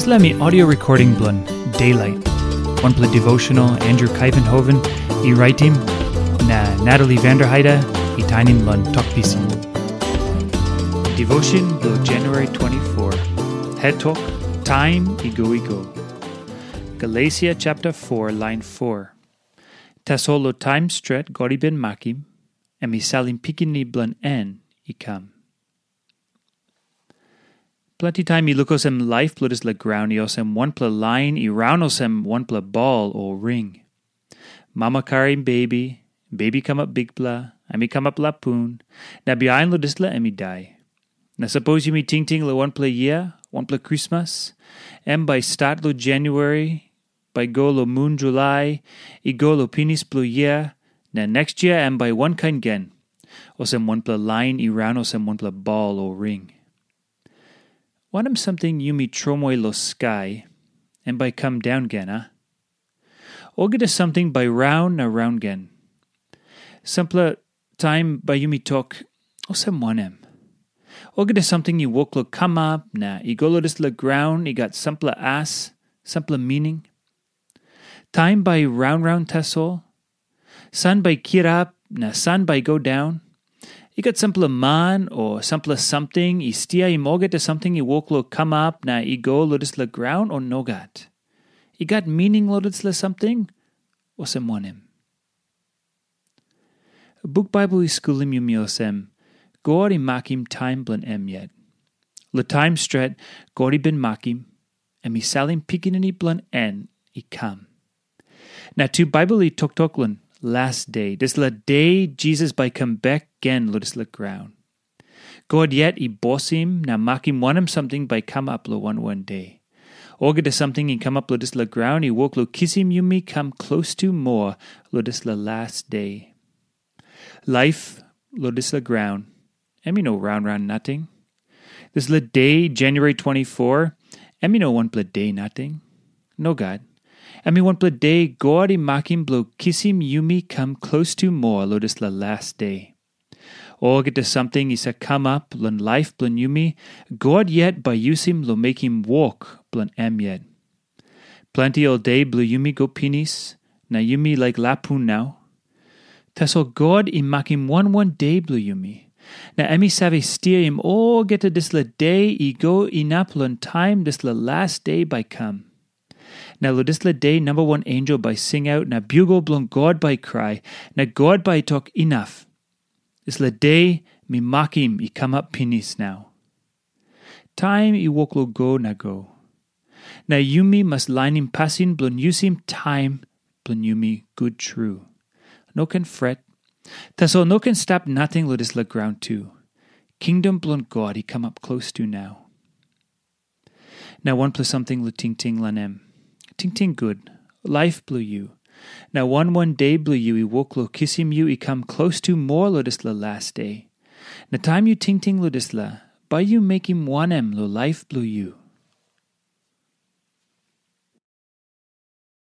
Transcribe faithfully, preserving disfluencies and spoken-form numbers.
Dispela mi audio recording bilong Daylight. Wanpela devotional Andrew Kuyvenhoven i raitim, na Natalie Vanderheide i tainim long tok pisin. Devotion bilong January twenty-four. Het tok, taim i go i go. Galesia chapter four, line four. Tasol long taim stret God i bin makim, em i salim pikinini bilong en i kam. Planti taim i luk olsem laip bilong dispela graun i olsem wanpela lain i raun olsem wanpela bol o ring. Mama karim bebi, bebi kamap bikpela, em i kamap lapun, na bihain long dispela em i dai. Na sapos yumi tingting long wanpela yia, wanpela krismas, em bai stat long Januari, bai go long mun Julai, i go long pinis bilong yia, na neks yia em bai wankain gen, olsem wanpela lain i raun olsem wanpela bol o ring. Wanem samting yumi tromoi long skai, em bai kam daun gen, a? Olgeta samting bai raun na raun gen. Sampela taim bai yumi tok, olsem wanem? Olgeta samting i wok long kamap na i go long dispela graun i gat sampela as, sampela mining. Taim bai raun raun tasol, san bai kirap na san bai go daun. I gat sampela man o sampela samting i stiaim olgeta samting i wok long kamap na i go long dispela graun o nogat? I gat mining long dispela samting, olsem wanem? Buk Baibel i skulim yumi olsem, God i makim taim bilong em yet. Long taim stret God i bin makim, em i salim pikinini bilong en i kam. Na tu Baibel i toktok long las de, dispela de Jisas bai kam bek gen long dispela graun. God yet i bosim na makim wanem samting bai kamap long wan wan de. Olgeta samting i kamap long dispela graun i wok long kisim yumi kam klostu moa long dispela las de. Laip long dispela graun, em i no raun raun nating. Dispela de, January twenty-four, em i no wanpela de nating. Nogat. Em i wanpela de God i makim bilong kisim yumi kam klostu moa long dispela las de. Olgeta samting i save kamap long laip bilong yumi, God yet bai yusim long mekim wok bilong em yet. Planti ol de bilong yumi go pinis, na yumi laik lapun nau. Tasol God i makim wan wan de bilong yumi, na em i save stiaim olgeta dispela de i go inap long taim dispela las de bai kam. Na long dispela de namba wan ensel bai singaut na biugel bilong God bai krai, na God bai tok, inap. Dispela de mi makim i kamap pinis nau. Taim i wok long go na go. Na yumi mas lainim pasin bilong yusim taim bilong yumi gut tru. No ken fret. Tasol no ken stap nating long dispela graun tu. Kingdom bilong God i kamap klostu nau. Na wanpela samting long tingting long em. Tingting gut, laip bilong yu. Na wan wan de bilong yu i wok long kisim yu i kam klostu moa long dispela las de. Na taim yu tingting long dispela, bai yu mekim wanem long laip bilong yu?